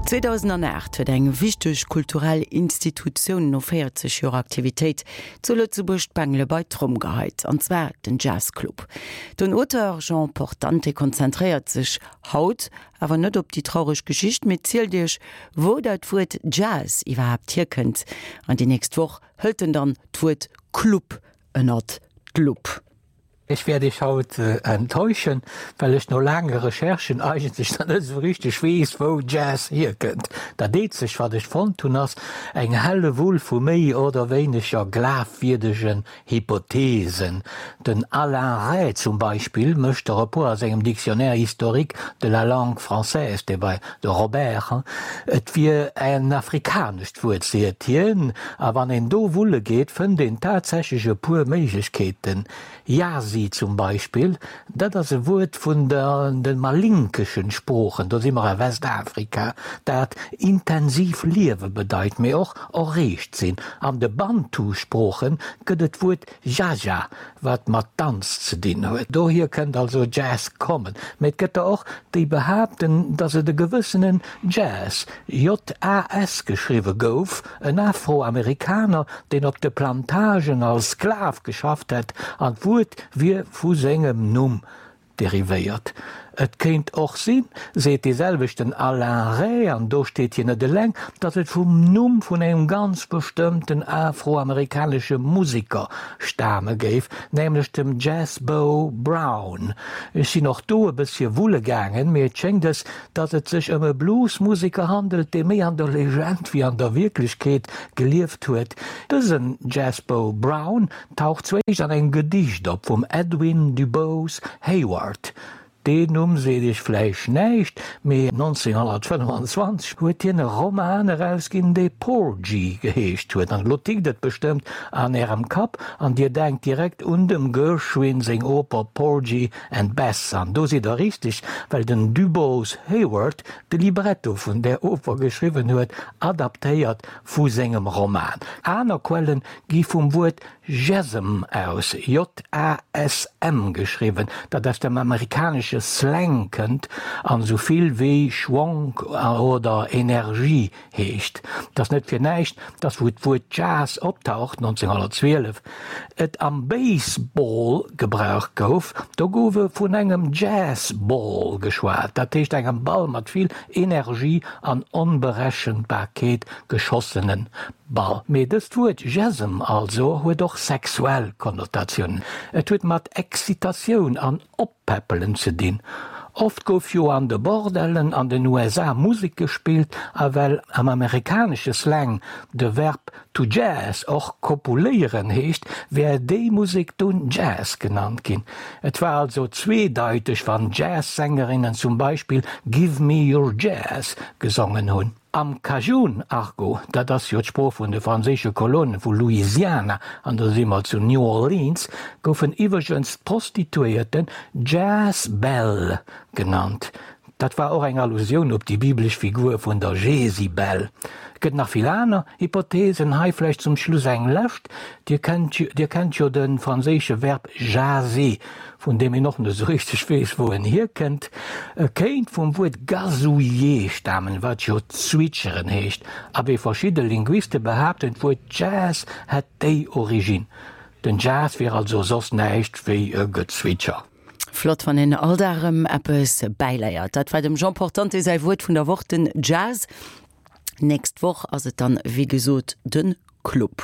2008 huet eng wichteg kulturell Institutioun no 40 Joer Aktivitéit zu Lëtzebuerg d'Bengele bei d'Tromm geheit, an zwar den Jazz Club. Den Auteur Jean Portante konzentréiert sech haut awer net op déi traureg Geschicht, mee zielt iech, wou dat Wuert Jazz iwwerhaapt hierkënnt. An déi nächst Woch hëlt en dann d'Wuert Club ënnert d'Lupp. Ech wäert Iech haut enttäuschen, well ech no laange Recherchen eigentlech nach net esou richteg weess, wou Jazz hierkënnt. Dat eenzegt, wat ech fonnt hunn, ass eng Hellewull vu méi oder wéineger glafwierdegen Hypothesen. Den Alain Rey zum Beispill mécht der e puer a sengem Dictionnaire historique de la langue française, dee bei de Robert, et wier en afrikanescht Wuert, seet hien, a wann een do wulle geet, fënnt een tatsächlech e puer Méiglechkeeten. Yasi zum Beispill, dat ass e Wuert vun de malinkeschen Sproochen, do si mer a Westafrika, dat intensiv liewe bedeit, mee och erreegt sinn. An de Bantu-Sprooche gëtt et d'Wuert Jaja, wat mat Danz ze dinn huet. Dohier kënnt also Jazz kommen. Mee et gëtt der och, déi behaapten, datt et e gewëssenen Jazz, J-A-S geschriwwe gouf, en Afroamerikaner, deen op de Plantagen als Sklav geschafft hätt, an d'Wuert wier vu sengem Numm derivéiert. Et kéint och sinn, seet dee selwechten Alain Rey, an do steet hien net eleng, datt et vum Numm vun engem ganz bestëmmten afroamerikanesche Museker stame géif, nämlech dem Jazz Bo Brown. Ech sinn och do e bëssche wulle gaangen, mee et schéngt es, datt et sech ëm e Bluesmuseker handelt, dee méi an der Legend wéi an der Wierklechkeet gelieft huet. Dësen Jazz Bo Brown Taucht zuéischt an engem Gedicht op vum Edwin DuBose Heyward. Deen Numm seet iech vläicht näischt, mee 1925 huet hien e Roman erausginn, dee Porgy geheescht huet. An elo tickt et bestëmmt an ärem Kapp an dir denkt direkt un dem Gershwin seng Oper Porgy and Bess. An do sidd der richteg, well den DuBose Heyward de Libretto vun där Oper geschriwwen huet, adaptéiert vu sengem Roman. Aner Quellen gi vum Wuert Jazzm aus, J-A-S-M geschriwwen, dat aus dem amerikanesche Slang kënnt an esou vill wéi Schwonk oder Energie heescht. Et ass net fir näischt, dass wou d'Wuert Jazz optaucht, 1912, et am Baseball gebraucht gouf. Do gouf e vun engem Jazz-Ball geschwat, dat heescht engem Ball mat vill Energie an Onberechenbarkeet geschossene Ball. Mee dëst Wuert Jazzm also huet och sexuell Konnotatiounen. Et huet mat Excitatioun an Oppäppelen ze dinn. Oft gouf jo an de Bordellen an den USA Musek gespillt a well am amerikanesche Slang de Verb to jazz och kopuléieren heescht, wär déi Musek dunn Jazz genannt ginn. Et war also zweedeiteg wann Jazz-Sängerinnen zum Beispill Give me your jazz gesongen hunn. Am Cajun-Argot, dat ass jo d'Sprooch vun de franséische Kolonen vu Louisiana, an do si mer zu New Orleans, goufen iwwregens d'Prostituéierten Jazz-Belle genannt. Dat war och eng Allusioun op déi biblesch Figur vun der Jesibel. Et gëtt nach vill aner Hypotheesen, hei vläicht zum Schluss eng lescht, Dir kennt, Dir kennt jo de franséische Verb jaser, vun deem een och net esou richteg weess, wou en hierkënnt. E kéint vum Wuert gazouiller stamen, wat jo zwitscheren heescht. A wéi verschidde Linguiste behaapten, d'Wuert Jazz hätt déi Originn. Den Jazz wier also soss näischt wéi e Gezwitscher. Flott, wann een all Dag erëm eppes bäileiert. Dat war dem Jean Portante säi Wuert vun der Woch, den Jazz. Nächst Woch ass et dann, wéi gesot, de Club.